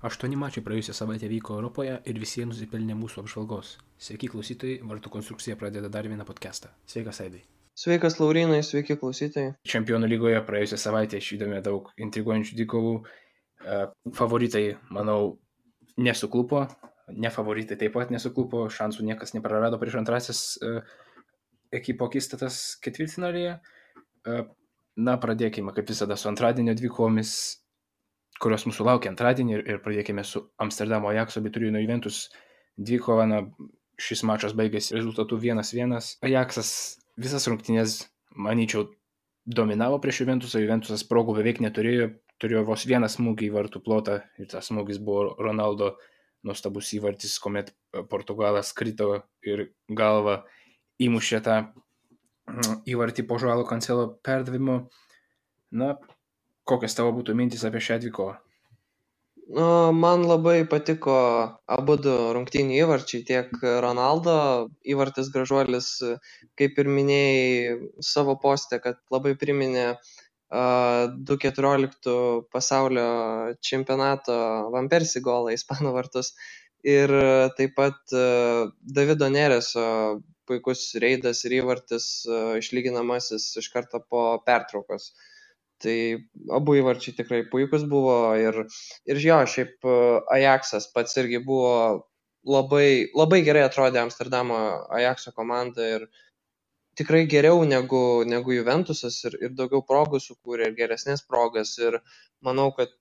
8 mačai praėjusią savaitę vyko Europoje ir visi jie nusipelnė mūsų apžvalgos. Sveiki klausytojai, Vartų konstrukcija pradeda dar vieną podcastą. Sveikas, Aidai. Sveikas, Laurinai, sveiki klausytojai. Čempionų lygoje praėjusią savaitę išvydome daug intriguojančių dvikovų. Favoritai, manau, nesuklupo. Nefavoritai taip pat nesuklupo. Šansų niekas neprarado prieš antrasis ekipo akistatas ketvirtfinalyje. Pradėkime kaip visada su antradienio dvikovomis, kurios mūsų laukia antradienį, ir pradėkime su Amsterdamo Ajaxo bei Turino Juventus dvikova. Šis mačas baigėsi rezultatu 1-1. Ajaxas visas rungtynės, manyčiau, dominavo prieš Juventusą. Juventusas progų beveik neturėjo, turėjo vos vieną smūgį į vartų plotą ir tas smūgis buvo Ronaldo nuostabus įvartis, kuomet Portugalas krito ir galva įmušė tą įvartį po Joao Cancelo perdavimo. Kokios tavo būtų mintis apie šią dvikovą? Man labai patiko abudu rungtynių įvarčiai, tiek Ronaldo įvartis gražuolis, kaip ir minėjai savo poste, kad labai priminė 2014 pasaulio čempionato Van Persie golą į Ispanų vartus. Ir taip pat Davido Nereso puikus reidas ir įvartis išlyginamasis iš karto po pertraukos. Tai abu įvarčiai tikrai puikus buvo ir jo, šiaip Ajaxas pats irgi buvo labai gerai atrodė Amsterdamo Ajaxo komanda ir tikrai geriau negu Juventusas ir daugiau progų sukūrė ir geresnės progas ir manau, kad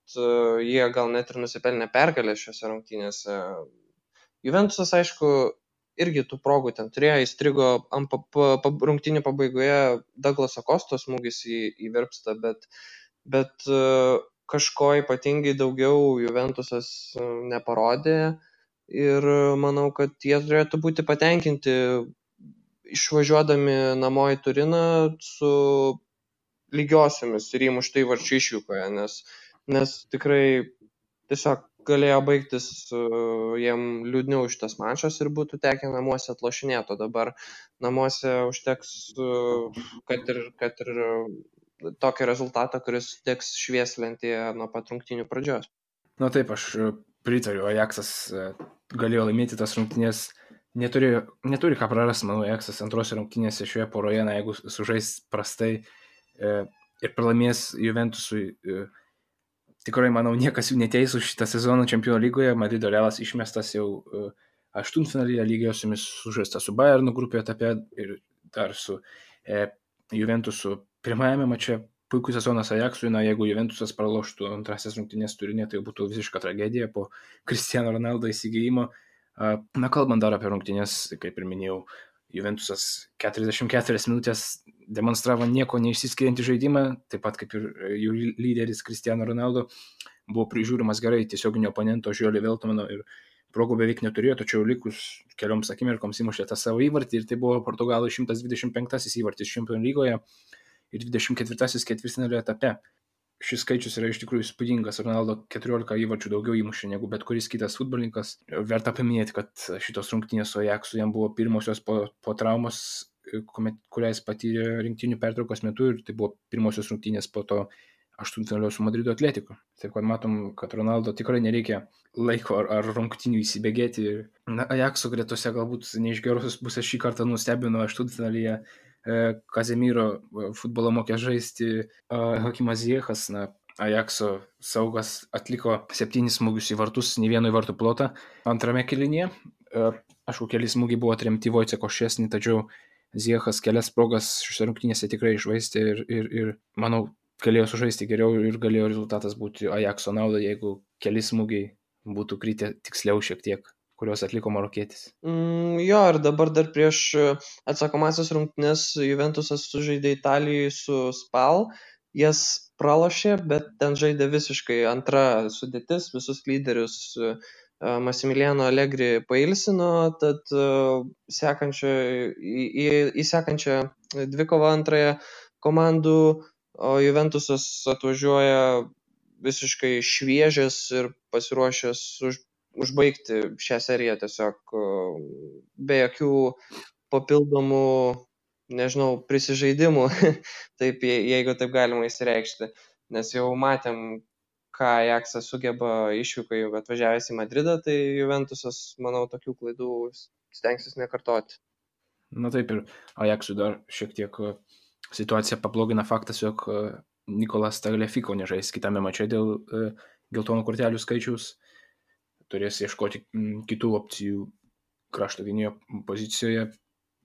jie gal net ir nusipelnė pergalę šiose rungtynėse. Juventusas, aišku, irgi tų progų ten turėjo, įstrigo rungtynių pabaigoje Douglaso Kostos smūgis į virpstą, bet kažko ypatingai daugiau Juventusas neparodė ir manau, kad jie turėtų būti patenkinti išvažiuodami namo į Turiną su lygiosiomis ir įmuštų įvarčių išvykoje, nes tikrai tiesiog galėjo baigtis jiem liūdniau šitas mačas ir būtų tekę namuose atlošinėti, o dabar namuose užteks, kad ir tokio rezultato, kuris teks švieslentėje nuo pat rungtynių pradžios. Taip, aš pritariu, Ajaxas galėjo laimėti tas rungtynės, neturi ką prarasti, manau, Ajaxas antrose rungtynėse šioje poroje, jeigu sužais prastai ir pralaimės Juventusui, tikrai, manau, niekas jų neteis už šitą sezoną Čempionų lygoje. Madrido Realas išmestas jau aštuntfinalyje, lygiosiomis sužaista su Bayernu grupėje etape ir dar su Juventusu pirmajame mače. Puikus sezonas Ajaxui, jeigu Juventusas praloštų antrasis rungtynės Turine, tai būtų visiška tragedija po Cristiano Ronaldo įsigijimo. Kalbant dar apie rungtynės, kaip ir minėjau, Juventusas 44 minutės demonstravo nieko neišsiskiriantį žaidimą, taip pat kaip ir jų lyderis Cristiano Ronaldo buvo prižiūrimas gerai tiesioginio oponento Žiolio Veltmano ir progų beveik neturėjo, tačiau likus kelioms akimirkoms įmušė tą savo įvartį ir tai buvo Portugalų 125 įvartis Čempionų lygoje ir 24 ketvirtfinalio etape. Šis skaičius yra iš tikrųjų įspūdingas. Ronaldo 14 įvarčių daugiau įmušė negu bet kuris kitas futbolininkas. Verta paminėti, kad šitos rungtynės su Ajaxu jam buvo pirmosios po traumos, kurią jis patyrė rinktinių pertraukos metu, ir tai buvo pirmosios rungtynės po to aštuntfinalio su Madrido Atletiku. Taip kad matom, kad Ronaldo tikrai nereikia laiko ar rungtynių įsibėgėti. Ajaxo gretose galbūt ne iš gerosios pusės šį kartą nustebino aštuntfinalyje Kazemiro futbolo mokė žaisti Hakimas Ziyechas. Ajaxo saugas atliko 7 smūgius į vartus, nei vieno į vartų plotą antrame kėlinyje. Aišku, keli smūgiai buvo atremti Vojceko Ščesny, tačiau Ziyechas kelias progas šiose rungtynėse tikrai iššvaistė ir manau, galėjo sužaisti geriau ir galėjo rezultatas būti Ajaxo naudai, jeigu keli smūgiai būtų kritę tiksliau šiek tiek, kurios atliko marokietis. Jo, ir dabar dar prieš atsakomasias rungtynes Juventusas sužaidė Italijoje su Spal, jas pralošė, bet ten žaidė visiškai antra sudėtis, visus lyderius Massimiliano Allegri pailsino, tad į sekančią dvikovą antrąją komandų, o Juventusas atvažiuoja visiškai šviežias ir pasiruošęs užbaigti šią seriją tiesiog be jokių papildomų, prisižaidimų, taip, jeigu taip galima įsireikšti, nes jau matėm, ką Ajaxas sugeba išvykoje atvažiavęs į Madridą, tai Juventusas, manau, tokių klaidų stengsis nekartoti. Na taip, ir Ajaxui dar šiek tiek situaciją pablogina faktas, jog Nikolas Tagliafico nežais kitame mače dėl geltonų kortelių skaičiaus. Turės ieškoti kitų opcijų krašto gynėjo pozicijoje.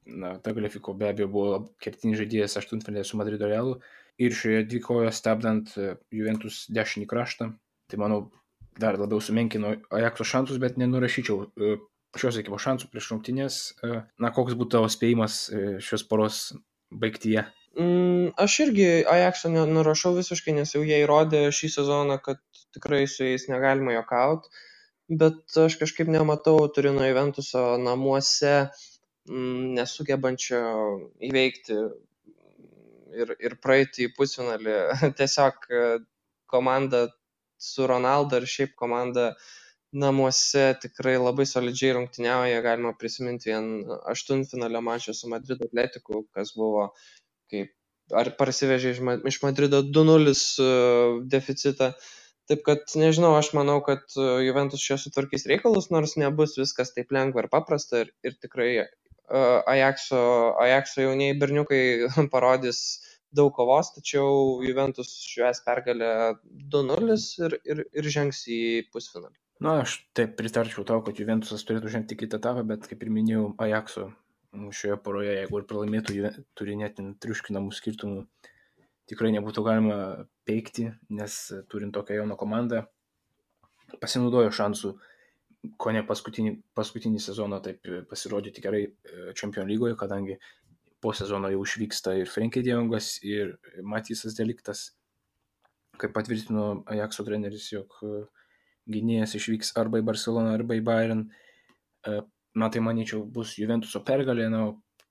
Na, Tagliafico be abejo buvo kertinis žaidėjas aštuntfinalyje su Madrido Realu ir šioje dvikovoje stabdant Juventus dešinį kraštą. Tai manau dar labiau sumenkino Ajaxo šansus, bet nenurašyčiau šios ekipos šansų prieš rungtynes. Na, koks būtų tavo spėjimas šios poros baigtyje? Aš irgi Ajaxo nurašau visiškai, nes jau jie įrodė šį sezoną, kad tikrai su jais negalima juokauti, bet aš kažkaip nematau Turino Juventuso namuose nesugebančio įveikti ir praeiti į pusfinalį. Tiesiog komanda su Ronaldo ir šiaip komanda namuose tikrai labai solidžiai rungtyniauja. Galima prisiminti vien aštuntfinalio mačą su Madrido Atletiku, kas buvo kaip ar parsivežė iš Madrido 2-0 deficitą. Taip kad, nežinau, aš manau, kad Juventus čia sutvarkys reikalus, nors nebus viskas taip lengva ir paprasta ir tikrai Ajaxo jaunieji berniukai parodys daug kovos, tačiau Juventus švęs pergalę 2-0 ir žengs į pusfinalį. Na, aš taip pritarčiau tau, kad Juventusas turėtų žengti kitą etapą, bet kaip ir minėjau, Ajaxo šioje poroje, jeigu ir pralaimėtų, turi net triuškinamų skirtumų, tikrai nebūtų galima peikti, nes turint tokią jauną komandą, pasinaudojo šansų ko ne paskutinį sezoną taip pasirodyti gerai Čempionų lygoje, kadangi po sezono jau išvyksta ir Frenkie de Jongas, ir Matysas de Ligtas, kaip patvirtino Ajaxo treneris, jog gynėjas išvyks arba į Barceloną, arba į Bayern. Na, tai manyčiau bus Juventuso pergalė, na,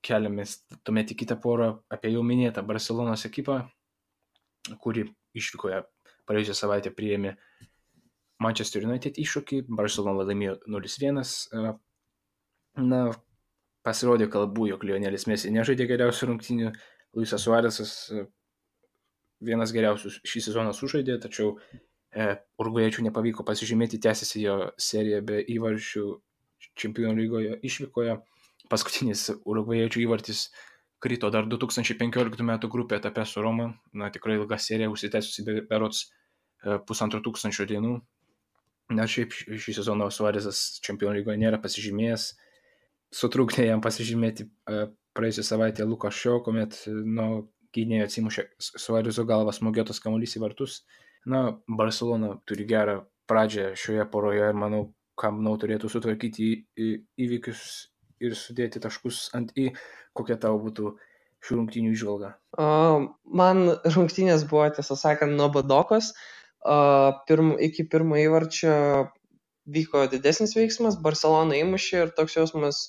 keliamės tuomet į kitą porą apie jau minėtą Barcelonos ekipą, kuri išvykoje praėjusią savaitę priėmė Manchester United iššūkį, Barcelona laimėjo 0-1. Na, pasirodė kalbų, jog Lionelis Messi nežaidė geriausių rungtynių, Luisas Suarezas vienas geriausių šį sezoną sužaidė, tačiau urugvajiečių nepavyko pasižymėti, tęsiasi jo serija be įvarčių Čempionų lygoje išvykoje. Paskutinis urugvajiečių įvartis krito dar 2015 metų grupė etape su Roma. Na, tikrai ilga serija, užsitęsusi berods 1500 dienų. Na, šiaip šį sezoną Suarezas Čempionų lygoje nėra pasižymėjęs. Sutrukdė jam pasižymėti praėjusią savaitę Lukas Šio, kuomet nuo gynėjo atsimušė Suarezo galvas smogėtas kamuolys į vartus. Na, Barcelona turi gerą pradžią šioje poroje ir manau, turėtų sutvarkyti įvykius ir sudėti taškus ant į. Kokia tavo būtų šių rungtynių įžvalga? Man rungtynės buvo, tiesą sakant, nuobodokos. Iki pirmo įvarčio vyko didesnis veiksmas, Barcelona įmušė ir toks jausmas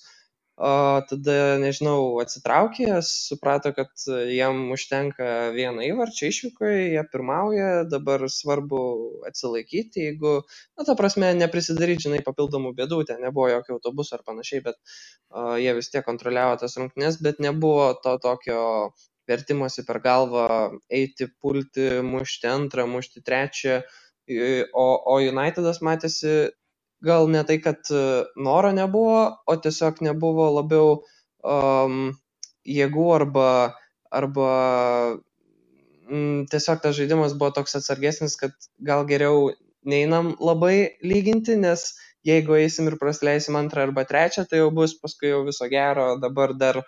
tada, nežinau, atsitraukė, suprato, kad jam užtenka vieną įvarčio išvykoje, jie pirmauja, dabar svarbu atsilaikyti, jeigu, ta prasme, neprisidaryti, žinai, papildomų bėdų, ten nebuvo jokio autobuso ar panašiai, bet jie vis tiek kontroliavo tas rungtynes, bet nebuvo to tokio vertimosi per galvą eiti, pulti, mušti antrą, mušti trečią, o Unitedas matėsi gal ne tai, kad noro nebuvo, o tiesiog nebuvo labiau jėgų arba tiesiog tas žaidimas buvo toks atsargesnis, kad gal geriau neinam labai lyginti, nes jeigu eisim ir prasileisim antrą arba trečią, tai jau bus paskui jau viso gero, dabar dar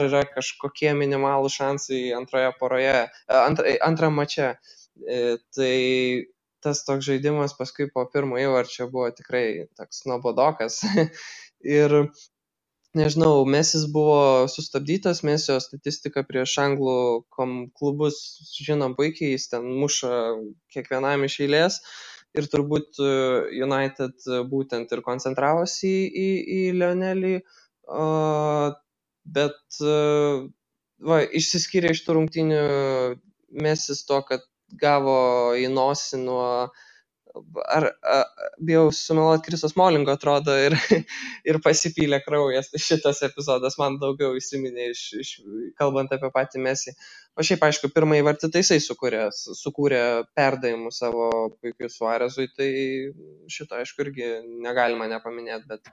yra kažkokie minimalų šansai antroje poroje, antram mače. Tai tas toks žaidimas paskui po pirmo įvarčio buvo tikrai toks nuobodokas. Ir nežinau, Mesis buvo sustabdytas, Mesio statistika prieš anglų klubus žinom puikiai, jis ten muša kiekvienam iš eilės ir turbūt United būtent ir koncentravosi į Lionelį, bet išsiskyrė iš tų rungtynių Mesis to, kad gavo į nosį nuo bijau sumeluoti, Kriso Smolingo atrodo ir pasipylė kraujas. Tai šitas epizodas man daugiau įsiminė kalbant apie patį Messi. O šiaip, aišku, pirmąjį vartį tai jisai sukūrė perdavimų savo puikiu Suarezui, tai šito, aišku, irgi negalima nepaminėti, bet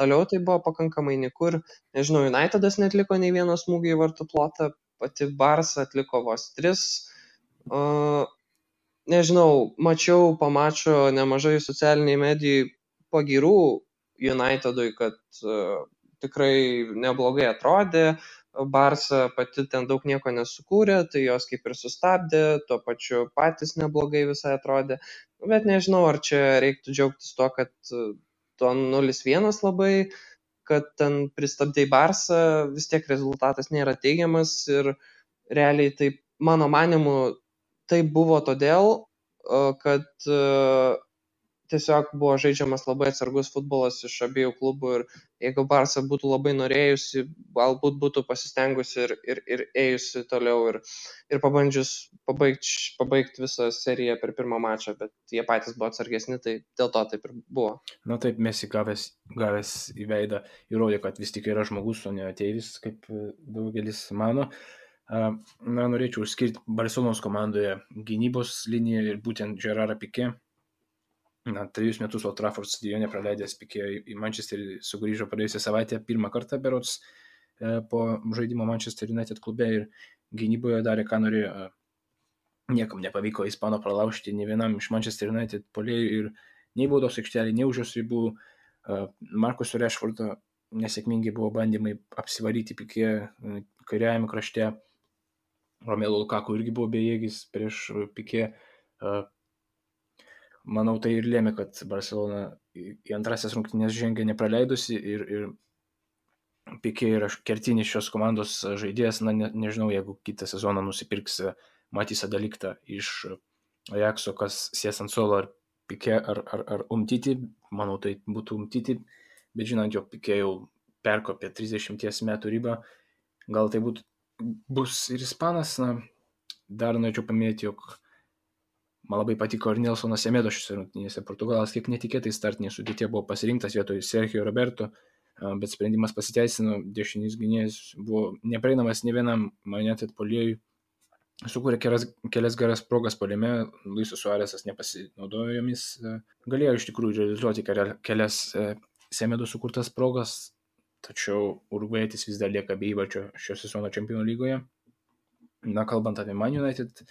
toliau tai buvo pakankamai nikur. Nežinau, Unitedas netliko nei vieno smūgio į vartų plotą, pati Barsa atliko vos 3. Nežinau, mačiau po mačo nemažai socialiniai medijai pagyrų Unitedui, kad tikrai neblogai atrodė, Barsa pati ten daug nieko nesukūrė, tai jos kaip ir sustabdė, tuo pačiu patys neblogai visai atrodė, bet nežinau, ar čia reiktų džiaugtis tuo, kad to 0-1 labai, kad ten pristabdė Barsą, vis tiek rezultatas nėra teigiamas ir realiai tai, mano manimu, tai buvo todėl, kad tiesiog buvo žaidžiamas labai atsargus futbolas iš abiejų klubų ir jeigu Barsa būtų labai norėjusi, galbūt būtų pasistengusi ir ėjusi toliau ir pabandžius pabaigti visą seriją per pirmą mačą, bet jie patys buvo atsargesni, tai dėl to taip ir buvo. Na taip, Messi gavęs į veidą įrodė, kad vis tik yra žmogus, o ne ateivis, kaip daugelis mano. Na, norėčiau išskirti Barcelonos komandoje gynybos liniją ir būtent Gerardą Piqué. 3 metus Old Trafford stadione praleidęs Piqué į Manchesterį sugrįžo praėjusią savaitę pirmą kartą berods po žaidimo Manchester United klube ir gynyboje darė, ką norėjo. Niekam nepavyko Ispano pralaužti nei vienam iš Manchester United puolėjų ir nei baudos aikštelė, nei už jos ribų. Marcus Rashfordo nesėkmingai buvo bandymai apsivaryti Piqué kairiajame krašte. Romelu Lukaku irgi buvo bejėgis prieš Piqué. Manau, tai ir lėmė, kad Barcelona į antrasias rungtynės žengė nepraleidusi ir Piqué yra kertinis šios komandos žaidėjas. Na, nežinau, jeigu kitą sezoną nusipirks Matisą De Ligtą iš Ajaxo, kas sės ant suolo, ar Piqué ar Umtiti. Manau, tai būtų Umtiti, bet žinant, jog Piqué jau perkopė 30 metų ribą, gal tai bus ir ispanas. Na, dar norėčiau paminėti, jog man labai patiko ir Nelsonas Semedo šiose rungtynėse. Portugalas kiek netikėtai startinėje sudėtyje buvo pasirinktas vietoj Sergio Roberto, bet sprendimas pasiteisino, dešinys gynėjas buvo neprieinamas ne vienam United puolėjui, sukūrė kelias geras progas puolime, Luisas Suarezas nepasinaudojo jomis, galėjo iš tikrųjų realizuoti kelias Semedo sukurtas progas, tačiau urugvajietis vis dar lieka be įvarčio šio sezono Čempionų lygoje. Na, kalbant apie Man United,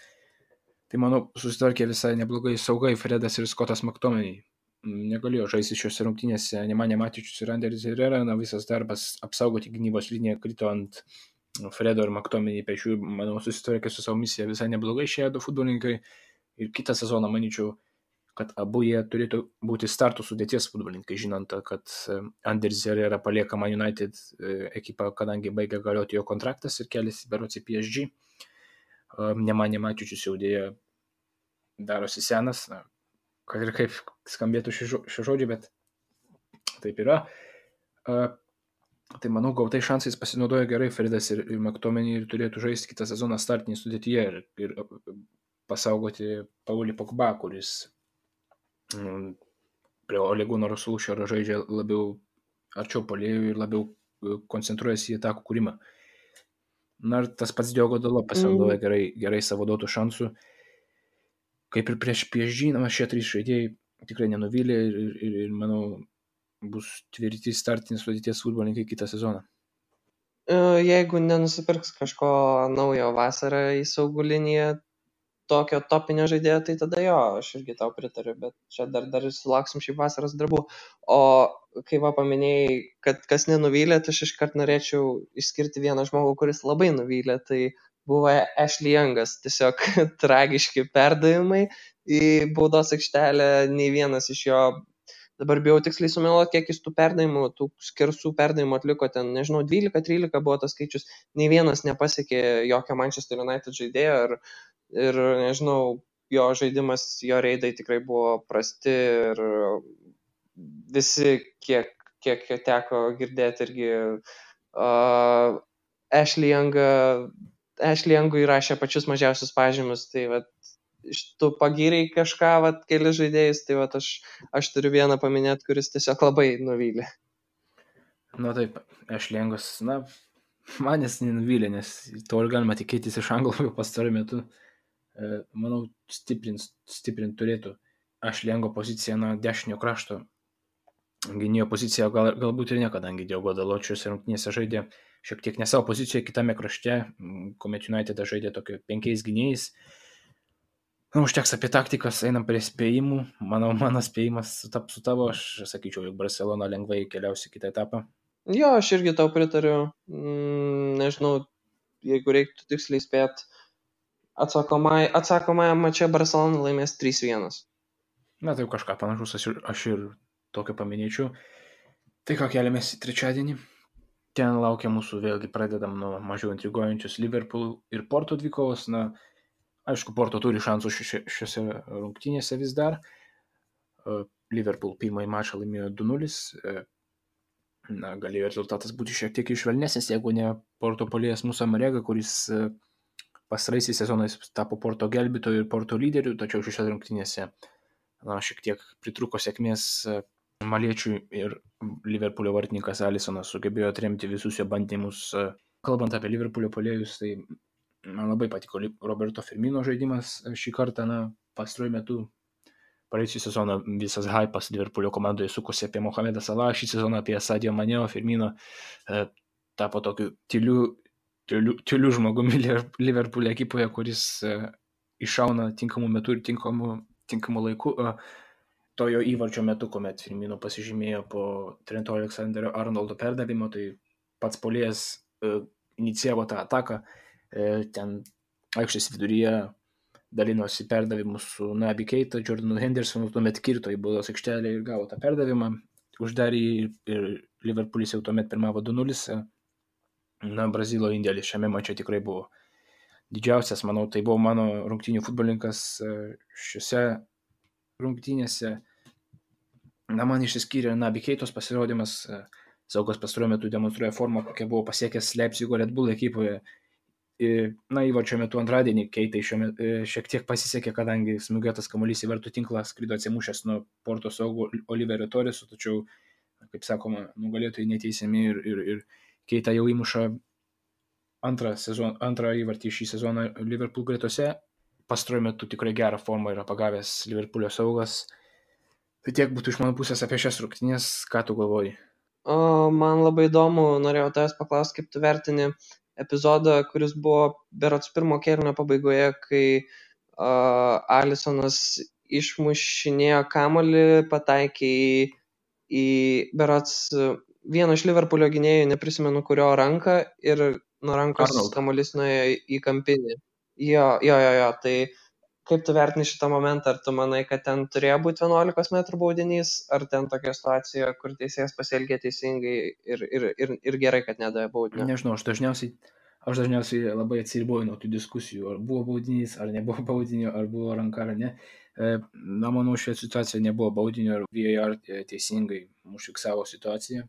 tai manau susitvarkė visai neblogai saugai Fredas ir Scottas McTominay. Negalėjo žaisti šiose rungtynėse Nemanja Matic ir Ander Herrera, na, visas darbas apsaugoti gynybos liniją krito ant Fredo ir McTominay pečių. Manau, susitvarkė su savo misija visai neblogai šie du futbolininkai ir kitą sezoną manyčiau, kad abu jie turėtų būti startų sudėties futbolininkai, žinant, kad Anders Herrera palieka Man United ekipą, kadangi baigia galioti jo kontraktas ir keliasi berods į PSG. Nemanja Mačičius jau dėja darosi senas, na, kad ir kaip skambėtų šio žodžio, bet taip yra. Tai manau, gautai šansais pasinaudojo gerai Fredas ir McTominay ir turėtų žaisti kitą sezoną startinį sudėtyje ir pasaugoti Paulį Pogba, kuris prie Ole Gunnar Solskjaero žaidžia labiau arčiau puolėjų ir labiau koncentruojasi į atakų kūrimą. Na, ir tas pats Diogo Dalot pasinaudoja gerai savo duotų šansų. Kaip ir prieš PSG, šie 3 žaidėjai tikrai nenuvylė ir manau, bus tvirti startinės sudėties futbolininkai kitą sezoną. Jeigu nenusipirks kažko naujo vasarą į saugų liniją, tokio topinio žaidėjo, tai tada jo, aš irgi tau pritariu, bet čia dar sulauksim šį vasaros darbų. O kai paminėjai, kad kas nenuvylė, tai aš iškart norėčiau išskirti vieną žmogų, kuris labai nuvylė, tai buvo Ashley Youngas. Tiesiog tragiški perdavimai į baudos aikštelę, nei vienas iš jo, dabar bijau tiksliai sumeluoti, kiek jis tų perdavimų, tų skersų perdavimų atliko, ten, nežinau, 12-13 buvo tas skaičius, nei vienas nepasiekė jokio Manchester United žaidėjo ir nežinau, jo žaidimas, jo reidai tikrai buvo prasti ir visi, kiek teko girdėti irgi, Ashley Youngui rašė pačius mažiausius pažymius, tai vat, tu pagyrei kažką, vat, keli žaidėjus, tai vat, aš turiu vieną paminėti, kuris tiesiog labai nuvylė. Na taip, Ešlengos, manęs nenuvylė, nes to ir galima tikėtis iš Anglų pastarų metų. Manau, stiprint turėtų Ešlengo poziciją, dešinio krašto gynėjo poziciją, galbūt ir ne, kadangi Diogo Dalot šiose rungtynėse žaidė šiek tiek ne savo pozicijoje, kitame krašte, kuomet United žaidė tokio 5 gynėjais. Užteks apie taktikas, einam prie spėjimų. Manau, mano spėjimas sutaps su tavo, aš sakyčiau, jog Barcelona lengvai keliausi kitą etapą. Jo, aš irgi tau pritariu. Nežinau, jeigu reiktų tiksliai spėti, atsakomąją mače Barcelona laimės 3-1. Na, tai kažką panašus, aš ir tokio paminėčiau. Tai ką keliamės į trečiadienį. Ten laukia mūsų, vėlgi pradedam nuo mažiau intriguojančius Liverpool ir Porto dvikovos. Aišku, Porto turi šansų šiose rungtynėse vis dar. Liverpool pirmąjį mačą laimėjo 2-0. Galėjo rezultatas būti šiek tiek išvelnesnis, jeigu ne Porto puolėjas Musa Marega, kuris pastaraisiais sezonais tapo Porto gelbėtoju ir Porto lyderiu, tačiau šiose rungtynėse šiek tiek pritruko sėkmės maliečiui ir Liverpoolio vartininkas Alisonas sugebėjo atremti visus jo bandymus. Kalbant apie Liverpoolio puolėjus, tai man labai patiko Roberto Firmino žaidimas šį kartą, pastaruoju metu. Praėjusią sezoną visas hypas Liverpoolio komandoje sukosi apie Mohamedą Salah, šį sezoną apie Sadio Mane, Firmino tapo tokiu tyliu žmogumi Liverpoolio ekipoje, kuris iššauna tinkamu metu ir tinkamu laiku. To jo įvarčio metu, kuomet Firmino pasižymėjo po Trento Alexander-Arnoldo perdavimo, tai pats puolėjas inicijavo tą ataką, ten aikštės viduryje dalinosi perdavimus su Naby Keita, Jordanu Hendersonu, tuomet kirto į baudos aikštelę ir gavo tą perdavimą, uždarė ir Liverpoolis jau tuomet pirmavo 2-0. Brazilo indėlis šiame mače tikrai buvo didžiausias, manau, tai buvo mano rungtynių futbolininkas šiose rungtynėse. Man išsiskyrė Naby Keitos pasirodymas, Saugas pastaruoju metu demonstruoja formą, kokia buvo pasiekęs Leipzigo Red Bull ekipoje. Įvarčio metu antradienį Keitai šiek tiek pasisekė, kadangi smūgiuotas kamuolys į vartų tinklą skrido atsimušęs nuo Porto saugo Oliverio Torreso, tačiau, kaip sakoma, nugalėtojai neteisiami ir Keita jau įmuša antrą įvartį šį sezoną Liverpool gretose. Pastaruoju metu tikrai gerą formą yra pagavęs Liverpoolio saugas. Tai tiek būtų iš mano pusės apie šias rungtynes. Ką tu galvoji? Man labai įdomu, norėjau tavęs paklausti, kaip tu vertini epizodą, kuris buvo berods pirmo kėlinio pabaigoje, kai Alisonas išmušinėjo kamuolį, pataikė į berods vieno iš Liverpoolio gynėjų, neprisimenu kurio ranką, ir nuo rankos kamuolys nuėjo į kampinį. Jo, tai kaip tu vertini šitą momentą? Ar tu manai, kad ten turėjo būti 11 metrų baudinys, ar ten tokia situacija, kur teisėjas pasielgė teisingai ir gerai, kad nedavė baudinio? Nežinau, aš dažniausiai labai atsiriboju nuo tų diskusijų, ar buvo baudinys, ar nebuvo baudinio, ar buvo ranka, ar ne. Manau, šioje situacijoje nebuvo baudinio, ir VAR teisingai užfiksavo situaciją,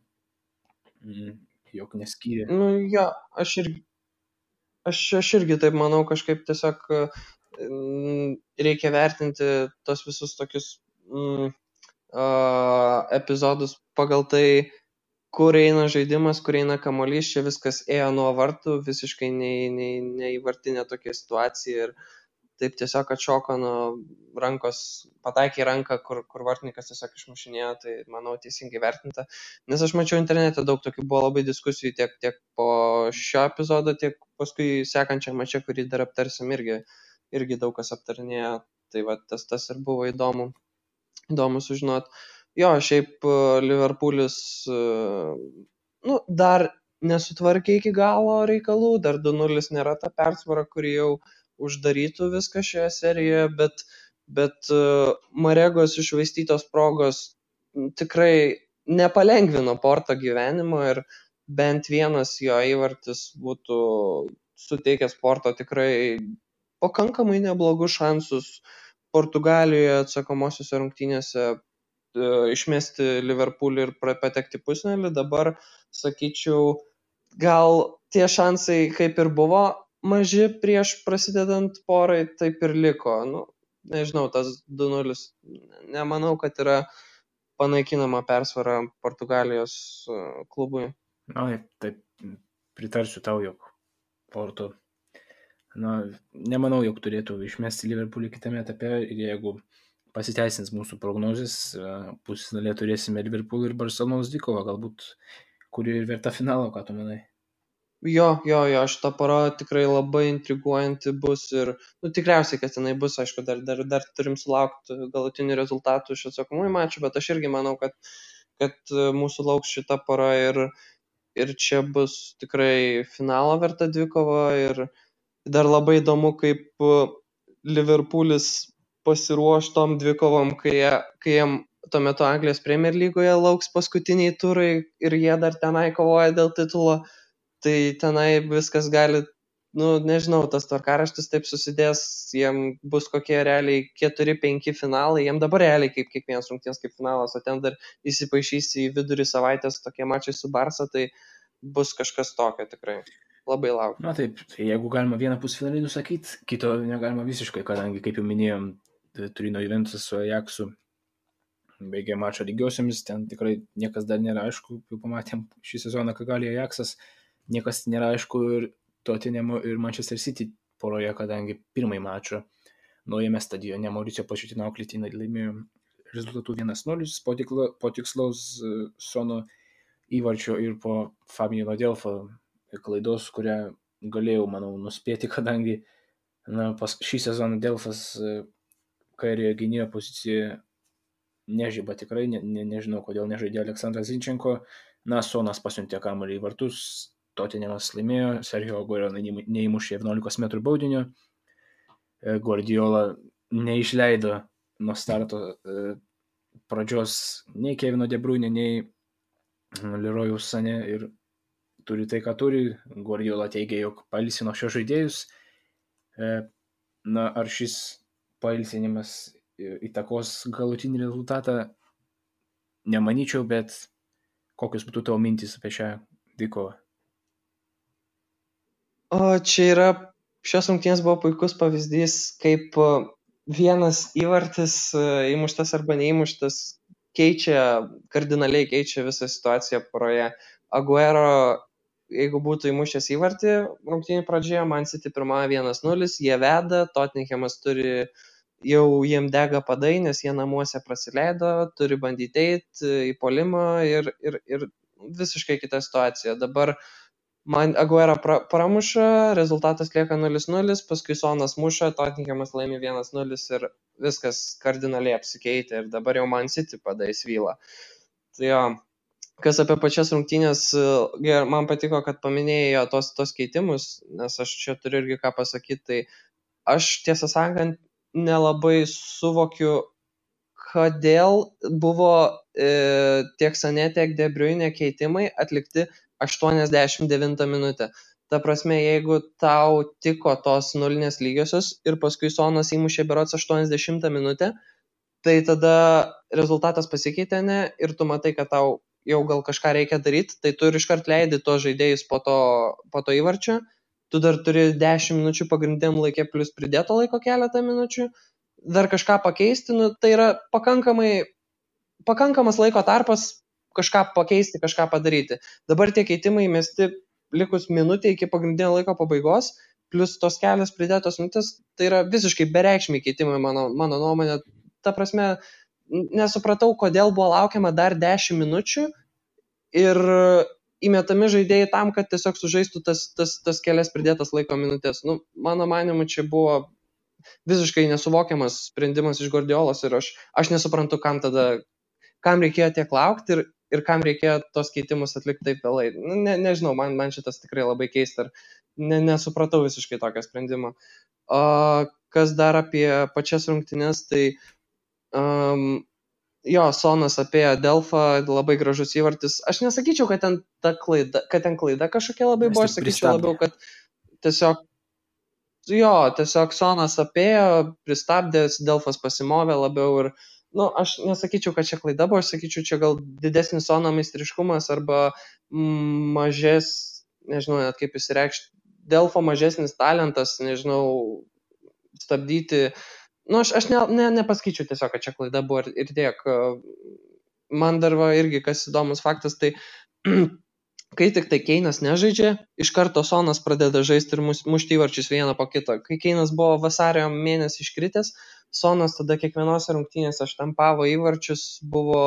jog neskyrė. Jo, aš irgi taip manau, kažkaip tiesiog reikia vertinti tos visus tokius epizodus pagal tai, kur eina žaidimas, kur eina kamuolys. Čia viskas ėjo nuo vartų, visiškai neįvartinė tokia situacija, ir taip tiesiog atšoko nuo rankos, pataikė į ranką, kur vartininkas tiesiog išmušinėjo. Tai manau teisingai vertinta, nes aš mačiau internete daug tokių, buvo labai diskusijų tiek po šio epizodo, tiek paskui sekančią mačą, kurį dar aptarsim, irgi daug kas aptarinėjo. Tai va, tas ir buvo įdomu sužinoti. Jo, šiaip Liverpoolis dar nesutvarkė iki galo reikalų, dar 2-0 nėra ta persvara, kuri jau uždarytų viską šioje serijoje, bet Maregos iššvaistytos progos tikrai nepalengvino Porto gyvenimo, ir bent vienas jo įvartis būtų suteikęs Porto tikrai pakankamai neblogus šansus Portugalijoje atsakomosiose rungtynėse išmesti Liverpoolį ir patekti pusfinalį. Dabar, sakyčiau, gal tie šansai kaip ir buvo maži prieš prasidedant porai, taip ir liko. nežinau, tas 2-0. Nemanau, kad yra panaikinama persvara Portugalijos klubui. Na, taip, pritarsiu tau, jog Porto, nemanau, jog turėtų išmesti Liverpoolį kitame etape ir jeigu pasiteisins mūsų prognozės, pusfinalėje turėsime Liverpool ir Barcelonos dvikovą, galbūt, kuri ir verta finalo, ką tu manai? Jo, šita pora tikrai labai intriguojanti bus ir, tikriausiai, kad jinai bus, aišku, dar turim sulaukti galutinių rezultatų iš atsakomųjų mačų, bet aš irgi manau, kad mūsų lauks šita pora ir čia bus tikrai finalo verta dvikova ir dar labai įdomu, kaip Liverpoolis pasiruoš tom dvikovom, kai jiem tuo metu Anglijos Premier lygoje lauks paskutiniai turai ir jie dar tenai kovoja dėl titulo. Tai tenai viskas gali, nežinau, tas tvarkaraštis taip susidės, jiem bus kokie realiai 4-5 finalai, jiem dabar realiai kaip kiekvienas rungtynės kaip finalas, o ten dar įsipaišys į vidurį savaitės tokie mačai su Barsa, tai bus kažkas tokio tikrai. Labai laukiu. Na taip, jeigu galima vieną pusfinalį nusakyti, kito negalima visiškai, kadangi, kaip jau minėjom, Turino Juventus su Ajaxu baigė mačą lygiosiomis, ten tikrai niekas dar nėra aišku, jau pamatėm šį sezoną, ką gali Ajaxas. Niekas nėra aišku ir Tottenhamo ir Manchester City poroje, kadangi pirmąjį mačą naujame stadione Mauricio Pochettino auklėtiniai laimėjo rezultatų 1-0 po tikslaus Sono įvarčio ir po Fabiano Delfo klaidos, kurią galėjau, manau, nuspėti, kadangi šį sezoną Delfas kairioje gynėjo pozicijoje nežyba tikrai, nežinau, kodėl nežaidė Aleksandras Zinchenko. Sonas pasiuntė kamuolį į vartus, Tottenhamas laimėjo, Sergio Aguero neįmušė 11 metrų baudinio, Guardiola neišleido nuo starto pradžios nei Kevino De Bruyne, nei Leroyaus Sané ir turi tai, ką turi. Guardiola teigia, jog pailsino šios žaidėjus. Ar šis pailsinimas įtakos galutinį rezultatą, nemanyčiau, bet kokios būtų tavo mintys apie šią dvikovą? O čia šios rungtynės buvo puikus pavyzdys, kaip vienas įvartis įmuštas arba neįmuštas kardinaliai keičia visą situaciją poroje. Aguero, jeigu būtų įmušęs įvartį rungtynių pradžioje, Man City pirmąją 1-0, jie veda, Tottenhamas jau jiem dega padai, nes jie namuose prasileido, turi bandyti eiti į puolimą ir visiškai kita situacija. Dabar Aguero pramuša, rezultatas lieka 0-0, paskui Sonas muša, Tottenhamas laimi 1-0 ir viskas kardinaliai apsikeitė ir dabar jau Man City padai svyla. Tai jo, kas apie pačias rungtynės, man patiko, kad paminėjo tos keitimus, nes aš čia turiu irgi ką pasakyti, tai aš tiesą sakant nelabai suvokiu, kodėl buvo tiek Sané, tiek De Bruyne keitimai atlikti 89 minutę. Ta prasme, jeigu tau tiko tos nulinės lygiosios ir paskui Sonas įmušė berods 80 minutę, tai tada rezultatas pasikeitė, ne, ir tu matai, kad tau jau gal kažką reikia daryti, tai tu ir iškart leidi tos žaidėjus po to įvarčio, tu dar turi 10 minučių pagrindiniam laikė plus pridėto laiko keletą minučių, dar kažką pakeisti, tai yra pakankamas laiko tarpas kažką pakeisti, kažką padaryti. Dabar tie keitimai mesti likus minutė iki pagrindinio laiko pabaigos, plus tos kelios pridėtos minutės, tai yra visiškai bereikšmiai keitimai mano nuomonė. Ta prasme, nesupratau, kodėl buvo laukiama dar 10 minučių ir įmetami žaidėjai tam, kad tiesiog sužaistų tas kelias pridėtas laiko minutės. Mano manimu, čia buvo visiškai nesuvokiamas sprendimas iš Guardiolos ir aš nesuprantu, kam reikėjo tiek laukti ir kam reikėjo tos keitimus atlikti taip vėlai. Nežinau, man šitas tikrai labai keista ir nesupratau visiškai tokio sprendimo. Kas dar apie pačias rungtynes, tai Sonas apėjo Delfą, labai gražus įvartis. Aš nesakyčiau, kad ten klaida kažkokia labai buvo, aš sakyčiau labiau, kad tiesiog Sonas apėjo, pristabdęs, Delfas pasimovė labiau ir aš nesakyčiau, kad čia klaida buvo, aš sakyčiau, čia gal didesnis Sono meistriškumas arba nežinau net kaip išsireikšti, Delfo mažesnis talentas, nežinau, stabdyti Aš nepaskaičiu tiesiog, kad čia klaida buvo ir tiek. Man dar va irgi kas įdomus faktas, tai kai tik tai Keinas nežaidžia, iš karto Sonas pradeda žaisti ir mušti įvarčius vieną po kito. Kai Keinas buvo vasario mėnesį iškritęs, Sonas tada kiekvienose rungtynėse štampavo įvarčius, buvo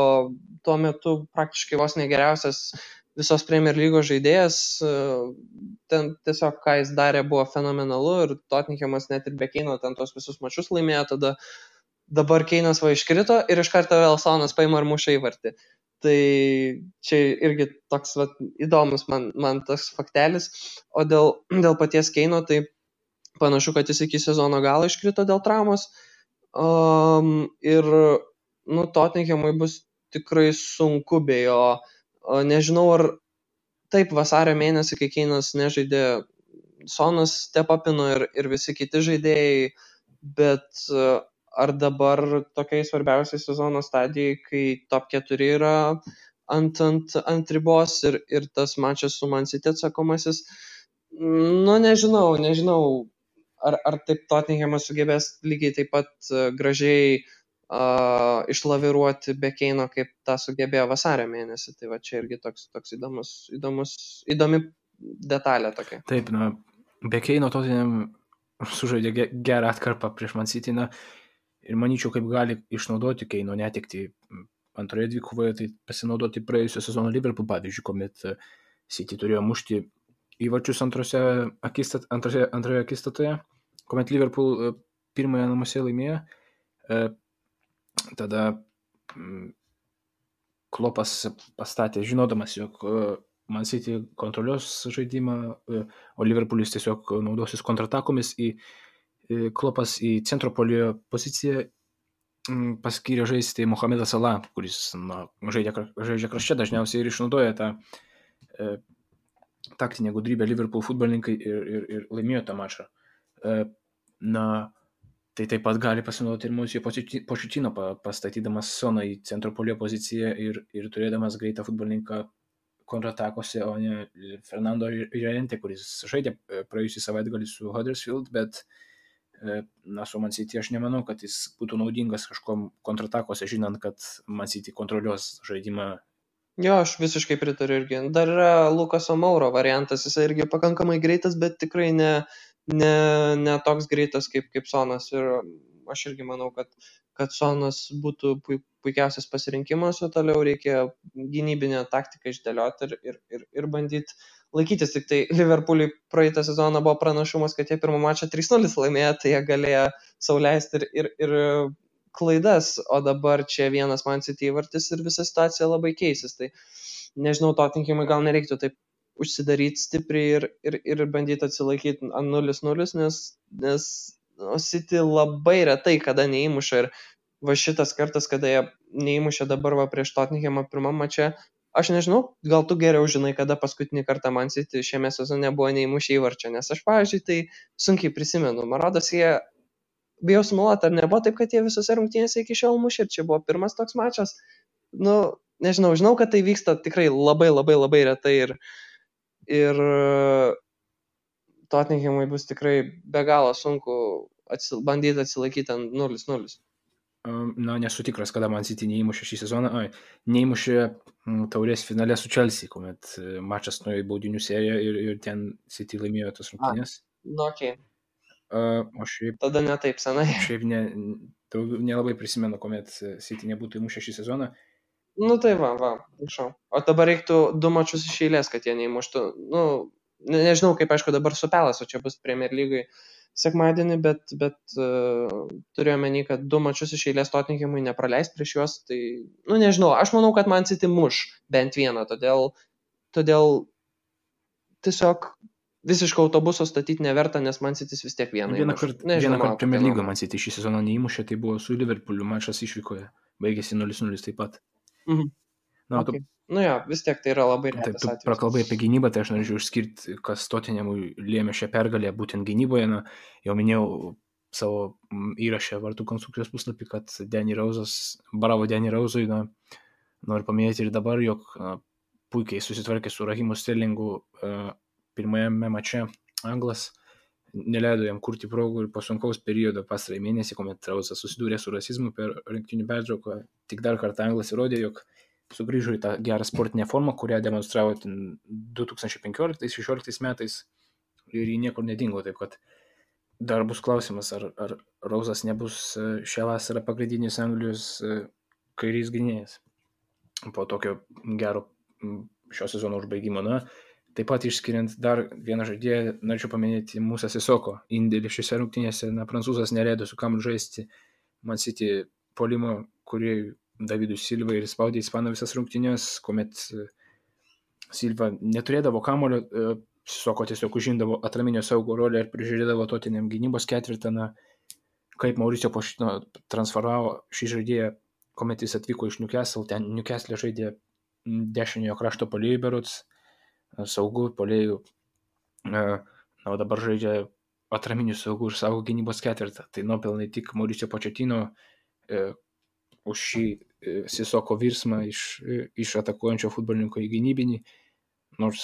tuo metu praktiškai vos negeriausias visos Premier lygos žaidėjas. Ten tiesiog, ką jis darė, buvo fenomenalu ir Tottenhamas net ir be Keino ten tos visus mačius laimėjo, tada dabar Keinas va iškrito ir iš karto vėl Sonas paima ir muša įvartį. Tai čia irgi toks įdomus man tas faktelis. O dėl paties Keino, tai panašu, kad jis iki sezono galo iškrito dėl traumos. Ir Tottenhamui bus tikrai sunku be jo. Nežinau, ar taip vasario mėnesį, kai Keinas nežaidė, Sonas stepapino ir visi kiti žaidėjai, bet ar dabar tokiai svarbiausiai sezono stadijai, kai top 4 yra ant ribos ir tas mačas su Man City atsakomasis, nežinau, ar taip Tottenhamas sugebės lygiai taip pat gražiai išlaviruoti be Keino, kaip tą sugebėjo vasario mėnesį. Tai va čia irgi toks įdomi detalė tokia. Taip, be Keino Tottenham sužaidė gerą atkarpą prieš Man City, ir manyčiau, kaip gali išnaudoti Keino netekti antroje dvikovoje, tai pasinaudoti praėjusio sezono Liverpool pavyzdžiui, kuomet City turėjo mušti įvarčius antroje akistatoje, kuomet Liverpool pirmąją namuose laimėjo. Tada Klopas pastatė, žinodamas, jog Man City kontroliuos žaidimą, o Liverpoolis tiesiog naudosis kontratakomis. Klopas į centro puolėjo poziciją paskyrė žaisti Mohamedą Salah, kuris žaidžia krašte dažniausiai ir išnaudoja tą taktinę gudrybę Liverpool futbolininkai ir laimėjo tą mačą. Tai taip pat gali pasinaudoti ir Mauricio Pochettino, pastatydamas Soną į centro puolėjo poziciją ir turėdamas greitą futbolininką kontratakose, o ne Fernando Llorente, kuris žaidė praėjusį savaitgalį su Huddersfield, bet su Man City aš nemanau, kad jis būtų naudingas kažkom kontratakose, žinant, kad Man City kontroliuos žaidimą. Jo, aš visiškai pritariu irgi. Dar yra Lukaso Mouro variantas, jis irgi pakankamai greitas, bet tikrai ne toks greitas kaip Sonas. Ir aš irgi manau, kad Sonas būtų puikiausias pasirinkimas, o toliau reikia gynybinę taktiką išdėlioti ir bandyti laikytis. Tik tai Liverpool'ui praeitą sezoną buvo pranašumas, kad jie pirmą mačą 3-0 laimėjo, tai jie galėjo sau leisti ir klaidas, o dabar čia vienas Man City įvartis ir visa situacija labai keisis. Tai nežinau, Tottenhamui gal nereiktų taip užsidaryti stipriai ir bandyti atsilaikyti ant 0-0, nes City labai retai kada neįmuša ir va šitas kartas, kada jie neįmušė dabar va prieš Tottenhamą pirmam mače, aš nežinau, gal tu geriau žinai, kada paskutinį kartą Man City šiame sezone buvo neįmušę įvarčio, nes aš, pavyzdžiui, tai sunkiai prisimenu. Man rodos, jie bijau sumuoluoti, ar nebuvo taip, kad jie visose rungtynėse iki šiol mušė ir čia buvo pirmas toks mačas. Nežinau, žinau, kad tai vyksta tikrai labai labai labai retai ir Tottenhamui bus tikrai be galo sunku bandyti atsilaikyti ant 0-0. Nesu tikras, kada Man City neįmušė šį sezoną. Neįmušė taurės finale su Chelsea, kuomet mačas nuėjo į baudinių seriją ir ten City laimėjo tas rungtynės. Okay. O šiaip tada ne taip senai. Šiaip nelabai prisimenu, kuomet City nebūtų įmušę šį sezoną. Tai va, prašau. O dabar reiktų 2 mačus iš eilės, kad jie neįmuštų. Nežinau, kaip aišku dabar su Pelas, o čia bus Premier lygai sekmadienį, bet turėjau menį, kad 2 mačus iš eilės Tottenhamui nepraleis prieš juos. Tai, nežinau, aš manau, kad Man City muš bent vieną, todėl tiesiog visiškai autobuso statyti neverta, nes Man City vis tiek vieną kartą Premier lygoje Man City šį sezoną neįmušė, tai buvo su Liverpooliu mačas išvykoje, baigėsi 0-0 taip pat. Okay. Vis tiek tai yra labai retas atvejis. Tu prakalbai apie gynybą, tai aš norėčiau išskirti, kas Tottenhamui lėmė šią pergalę būtent gynyboje. Jau minėjau savo įrašę Vartų konstrukcijos puslapį, kad bravo Danny Rose'ui, noriu paminėti ir dabar, jog puikiai susitvarkė su Rahimu Sterlingu pirmajame mače Anglas, neleido jam kurti progų ir po sunkaus periodo pastarąjį mėnesį, kuomet Rausas susidūrė su rasizmu per rinktinių pertrauką, tik dar kartą Anglas įrodė, jog sugrįžo į tą gerą sportinę formą, kurią demonstravo 2015-2016 metais ir jį niekur nedingo. Taip kad dar bus klausimas, ar Rausas nebus šią vasarą pagrindinis Anglijos kairys gynėjas po tokio gero šio sezono užbaigimo. Taip pat išskiriant dar vieną žaidėją, norėčiau paminėti Musa Sissoko indėlį šiose rungtynėse. Prancūzas neleido su kamuoliu žaisti Man City puolimo, kurį Davidui Silva ir spaudė Ispaną visas rungtynės, kuomet Silva neturėdavo kamuolio, Sissoko tiesiog užimdavo atraminio saugo rolę ir prižiūrėdavo Tottenham gynybos ketvirtą. Kaip Mauricio Pochettino transferavo šį žaidėją, kuomet jis atvyko iš Newcastle, ten Newcastle žaidė dešiniojo krašto puolėjų berods, saugų puolėjų, o dabar žaidžia atraminių saugų ir saugo gynybos ketvirtą. Tai nuopelnai tik Mauricio Pochettino už šį Sissoko virsmą iš atakuojančio futbolininko į gynybinį, nors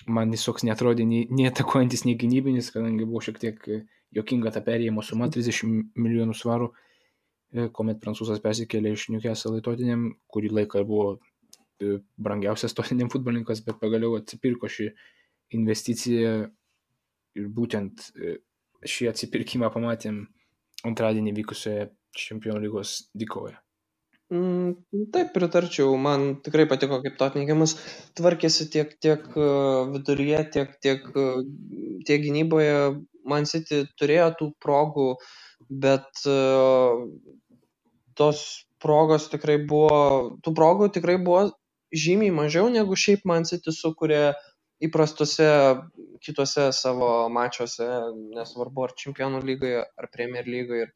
man jis toks netrodė nei atakuojantis, nei gynybinis, kadangi buvo šiek tiek jokinga ta perėjimo suma 30 milijonų svarų, kuomet prancūzas persikėlė iš Newcastle į Tottenham, kurį laiką buvo brangiausias Tottenham futbolininkas, bet pagaliau atsipirko šį investiciją ir būtent šį atsipirkimą pamatėm antradienį vykusioje Čempionų lygos dvikovoje. Taip, pritarčiau. Man tikrai patiko, kaip Tottenhamas tvarkėsi tiek viduryje, tiek gynyboje. Man City turėjo tų progų, bet tų progų tikrai buvo žymiai mažiau, negu šiaip Man City sukuria įprastuose kitose savo mačiuose, nesvarbu ar Čempionų lygoje, ar Premier lygoje. Ir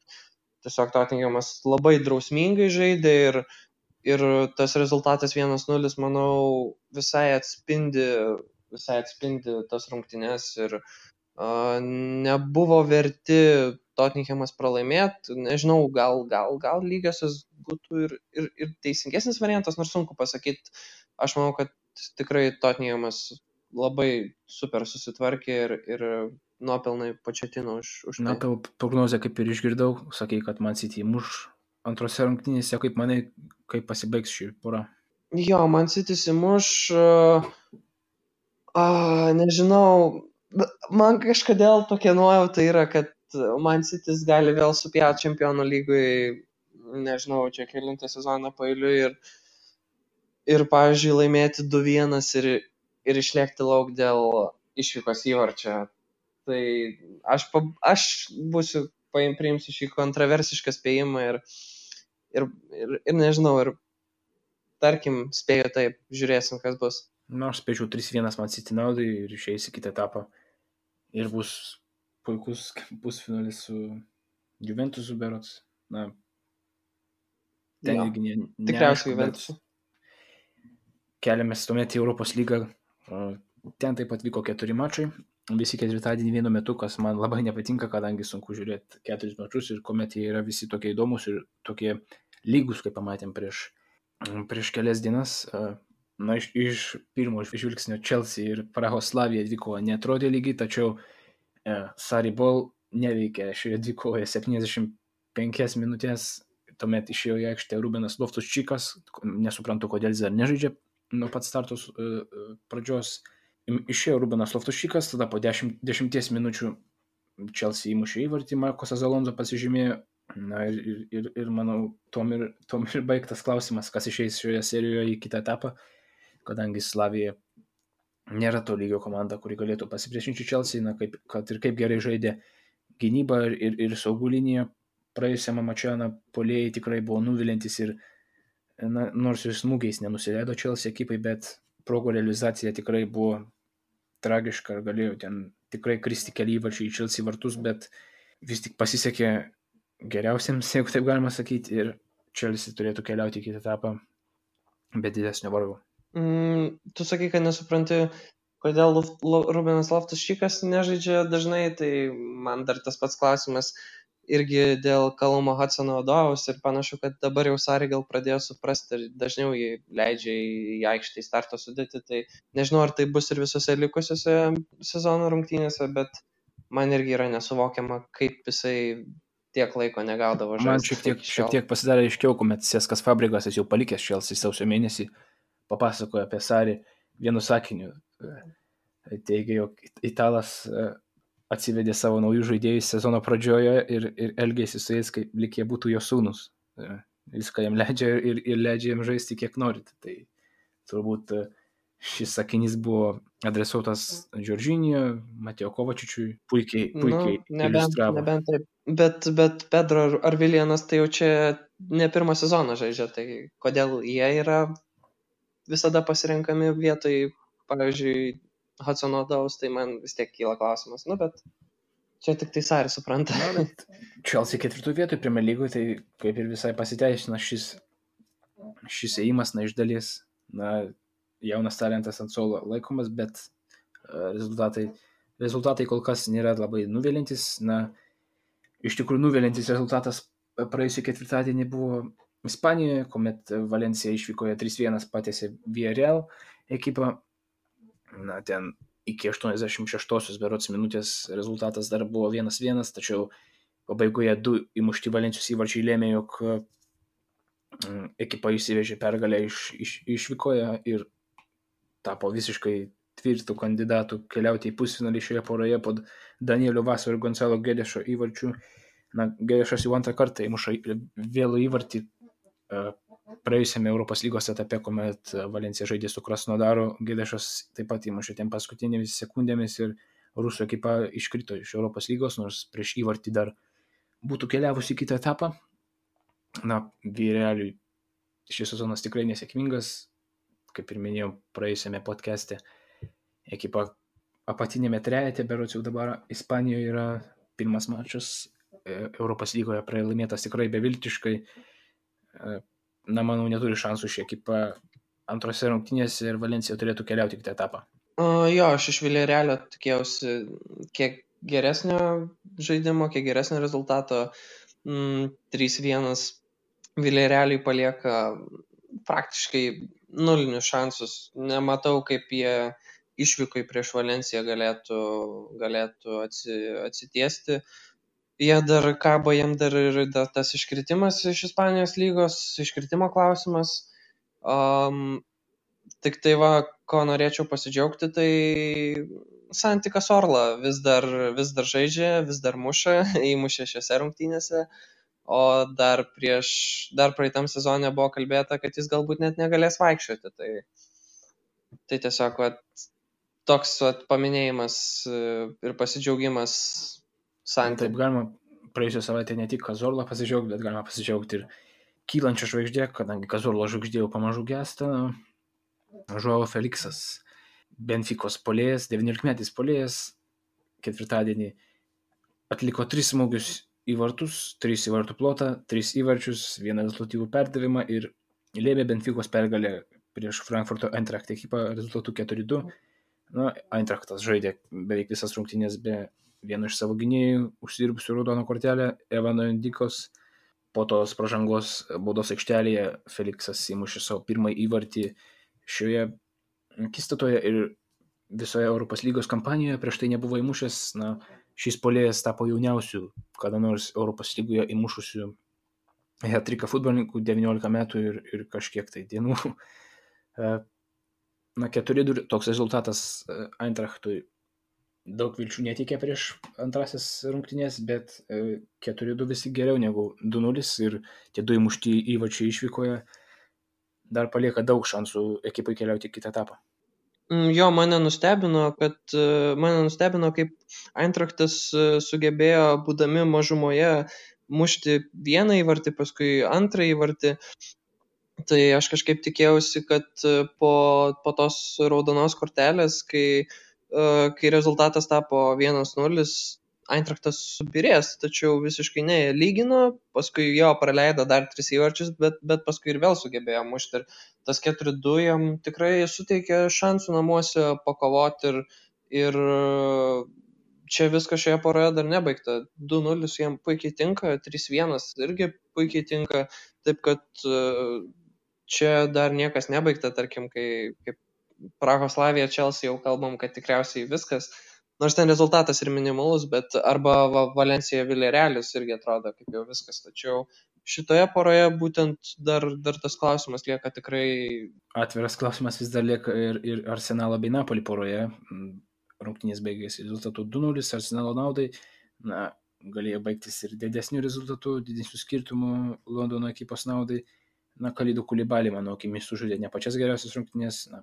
tiesiog Tottenhamas labai drausmingai žaidė ir tas rezultatas 1-0, manau, visai atspindi tas rungtynes ir nebuvo verti Tottenhamas pralaimėti. Nežinau, gal lygiosios būtų ir teisingesnis variantas, nors sunku pasakyti. Aš manau, kad tikrai Tottenhamas labai super susitvarkė ir nuopelnai Pochettino už tai. Tavo prognozę kaip ir išgirdau, sakei, kad Man City muš antrose rungtynėse, kaip manai, kaip pasibaigs šį porą? Jo, Man City muš, nežinau, man kažkodėl tokia nuojauta yra, kad Man City gali vėl supjauti Čempionų lygoje, nežinau, čia kelintą sezoną paeiliui ir pavyzdžiui, laimėti 2-1 ir išlėkti lauk dėl išvykos įvarčio. Tai aš priimsiu šį kontroversišką spėjimą ir nežinau, ir tarkim spėju taip, žiūrėsim, kas bus. Aš spėčiau 3-1 Man City naudai ir išeis į kitą etapą. Ir bus puikus pusfinalis su Juventusu berods. Ten irgi tikriausiai Juventusu. Keliamės tuomet į Europos lygą. Ten taip pat vyko 4 mačai. Visi ketvirtadienį vienu metu, kas man labai nepatinka, kadangi sunku žiūrėti 4 mačus ir kuomet jie yra visi tokie įdomus ir tokie lygus, kaip pamatėm prieš kelias dienas. Iš pirmo žvilgsnio Chelsea ir Prahos Slavija dvikovoje neatrodė lygiai, tačiau Sarri Ball neveikė šioje dvikovoje 75 minutės. Tuomet išėjo į aikštę Rubenas Loftus-Cheekas, nesuprantu, kodėl jis dar nežaidžia nuo pat startos pradžios. Išėjo Rubenas Loftus-Cheekas, tada po 10 minučių Chelsea įmušė įvartį, Marcosas Alonso pasižymėjo. Ir manau, tom ir baigtas klausimas, kas išeis šioje serijoje į kitą etapą, kadangi Slavija nėra to lygio komanda, kuri galėtų pasipriešinti Chelsea, kad ir kaip gerai žaidė gynyba ir saugų linija. Praėjusiame mače puolėjai tikrai buvo nuvilintis ir nors ir smūgiais nenusileido Chelsea ekipai, bet progų realizacija tikrai buvo tragiška ir galėjo ten tikrai kristi keli įvarčiai į Chelsea vartus, bet vis tik pasisekė geriausiems, jeigu taip galima sakyti, ir Chelsea turėtų keliauti į kitą etapą be didesnio vargo. Tu sakai, kad nesupranti, kodėl Rubenas Loftus-Cheekas nežaidžia dažnai, tai man dar tas pats klausimas irgi dėl Callum Hudson-Odoi's ir panašu, kad dabar jau Sarri gal pradėjo suprasti ir dažniau jį leidžia į aikštę į starto sudėtį, tai nežinau, ar tai bus ir visose likusiose sezono rungtynėse, bet man irgi yra nesuvokiama, kaip jisai tiek laiko negaudavo Man žaisti šiek tiek pasidarė aiškiau, kuomet Seskas Fabregasas jau palikęs Chelsea sausio mėnesį, papasakojo apie Sarį vienu sakiniu. Teigia, jog Italas atsivedė savo naujų žaidėjus sezono pradžioje ir elgėsi su jais, kaip lyg jie būtų jo sūnus. Viską jam leidžia ir leidžia jam žaisti kiek norit. Tai turbūt šis sakinys buvo adresuotas Džordžinio, Mateo Kovačičiui, puikiai iliustravo. Nebent taip. Bet Pedro ar Viljanas tai jau čia ne pirmą sezoną žaidžia, tai kodėl jie yra visada pasirenkami vietoj, pavyzdžiui, Hudsono Odojaus, tai man vis tiek kyla klausimas. Bet čia tik tai Sarį supranta. Chelsea 4 vietoj Premier Lygoje, tai kaip ir visai pasiteisina šis ėjimas, iš dalies, jaunas talentas ant suolo laikomas, bet rezultatai kol kas nėra labai nuvilintis. Iš tikrųjų nuvilintis rezultatas praėjusį ketvirtadienį buvo Ispanijoje, kuomet Valencija išvykoje 3-1 patiesė Villarreal ekipą. Ten iki 86 berods minutės rezultatas dar buvo 1-1, tačiau pabaigoje 2 įmušti Valencijos įvarčiai lėmė, jog ekipa išsivežė pergalę išvykoje ir tapo visiškai tvirtų kandidatų keliauti į pusfinalį šioje poroje po Danielio Vaso ir Gonzalo Gedešo įvarčių. Gedešas jau antrą kartą įmuša vėlų įvartį praėjusiame Europos lygos etape, kuomet Valencija žaidė su Krasnodaru. Gedešas taip pat įmušė ten paskutinėmis sekundėmis ir rusų ekipa iškrito iš Europos lygos, nors prieš įvartį dar būtų keliavusi į kitą etapą. Villarrealiui šis sezonas tikrai nesėkmingas, kaip ir minėjau praėjusiame podcast'e. Ekipa apatinėme trejete, berods jau dabar Ispanijoje yra pirmas mačas Europos lygoje pralaimėtas tikrai beviltiškai. Manau, neturi šansų ši ekipa antrose rungtynėse ir Valencija turėtų keliauti į kitą etapą. Aš iš Villarrealio tikėjausi kiek geresnio žaidimo, kiek geresnio rezultato. 3-1 Villarrealiui palieka praktiškai nulinius šansus. Nematau, kaip jie išvykai prieš Valenciją galėtų atsitiesti. Jie dar kabo, jiem dar ir tas iškritimas iš Ispanijos lygos, iškritimo klausimas. Tik tai ko norėčiau pasidžiaugti, tai Santi Cazorla vis dar žaidžia, vis dar muša, įmušė šiose rungtynėse, o dar praeitam sezone buvo kalbėta, kad jis galbūt net negalės vaikščioti. Tai tiesiog toks paminėjimas ir pasidžiaugimas Santi. Taip galima praėjusią savaitę ne tik Cazorla pasidžiaugti, bet galima pasidžiaugti ir kylančią žvaigždė, kadangi Cazorla žvaigždė jau pamažu gęsta. Joao Felixas, Benficos puolėjas, 19-metis puolėjas, ketvirtadienį atliko 3 smūgius į vartus, 3 į vartų plotą, 3 įvarčius, 1 rezultatyvų perdavimą ir lėmė Benficos pergalę prieš Frankfurto Eintracht ekipą rezultatu 4-2. Eintrachtas žaidė beveik visas rungtynės be vieno iš savo gynėjų, užsidirbusių raudoną kortelę, Evano Indikos. Po tos pražangos baudos aikštelėje Felixas įmušė savo pirmąjį įvartį šioje akistatoje ir visoje Europos lygos kampanijoje prieš tai nebuvo įmušęs. Šis puolėjas tapo jauniausiu kada nors Europos lygoje įmušusiu hat-tricką futbolininkų, 19 metų ir kažkiek tai dienų. 4-2 toks rezultatas Eintrachtui daug vilčių netikė prieš antrasis rungtynės, bet 4-2 visi geriau negu 2-0 ir tie 2 įmušti įvarčiai išvykoje dar palieka daug šansų ekipai keliauti į kitą etapą. Mane nustebino, kaip Eintrachtas sugebėjo, būdami mažumoje, mušti vieną įvartį, paskui antrą įvartį. Tai aš kažkaip tikėjausi, kad po tos raudonos kortelės, kai rezultatas tapo 1-0, Eintrachtas subirės, tačiau visiškai ne, jie lygino, paskui jo praleido dar 3 įvarčius, bet paskui ir vėl sugebėjo mušti. Ir tas 4-2 jam tikrai suteikė šansų namuose pakovoti ir čia viskas šioje poroje dar nebaigta. 2-0 jam puikiai tinka, 3-1 irgi puikiai tinka, taip kad čia dar niekas nebaigta, tarkim, kaip Prahoslavija, Chelsea jau kalbam, kad tikriausiai viskas, nors ten rezultatas ir minimalus, bet arba Valencija Villarrealis irgi atrodo kaip jau viskas, tačiau šitoje poroje būtent dar tas klausimas lieka tikrai. Atviras klausimas vis dar lieka ir Arsenalo bei Napoli poroje. Rungtynės baigėsi rezultatu 2-0 Arsenalo naudai. Na, galėjo baigtis ir didesnių rezultatų, didesnių skirtumų Londono ekipos naudai. Na, Kalidų Kulibalį, mano akimis, sužaidė ne pačias geriausias rungtynės. Na,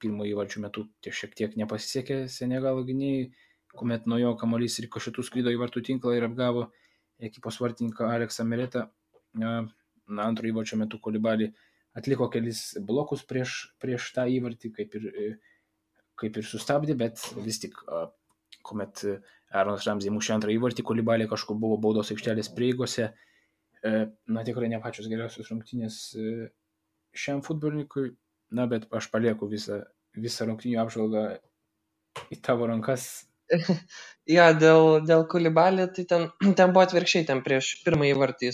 pirmo įvarčių metu šiek tiek nepasisekė Senegalo gynėjai, kuomet nuo jo kamuolys rikošetu skrido į vartų tinklą ir apgavo ekipos vartininką Aleksą Meretą. Na, antro įvarčio metu Kulibalį atliko kelis blokus prieš tą įvartį, kaip ir sustabdė, bet vis tik, kuomet Aaronas Ramsey mušė antrą įvartį, Kulibalį kažkur buvo baudos aikštelės prieigose. Na, tikrai ne pačios geriausios rungtynės šiam futbolininkui. Na, bet aš palieku visą rungtynių apžvalgą į tavo rankas. Ja, dėl Kulibalį, tai ten buvo atvirkščiai, ten prieš pirmąjį įvartį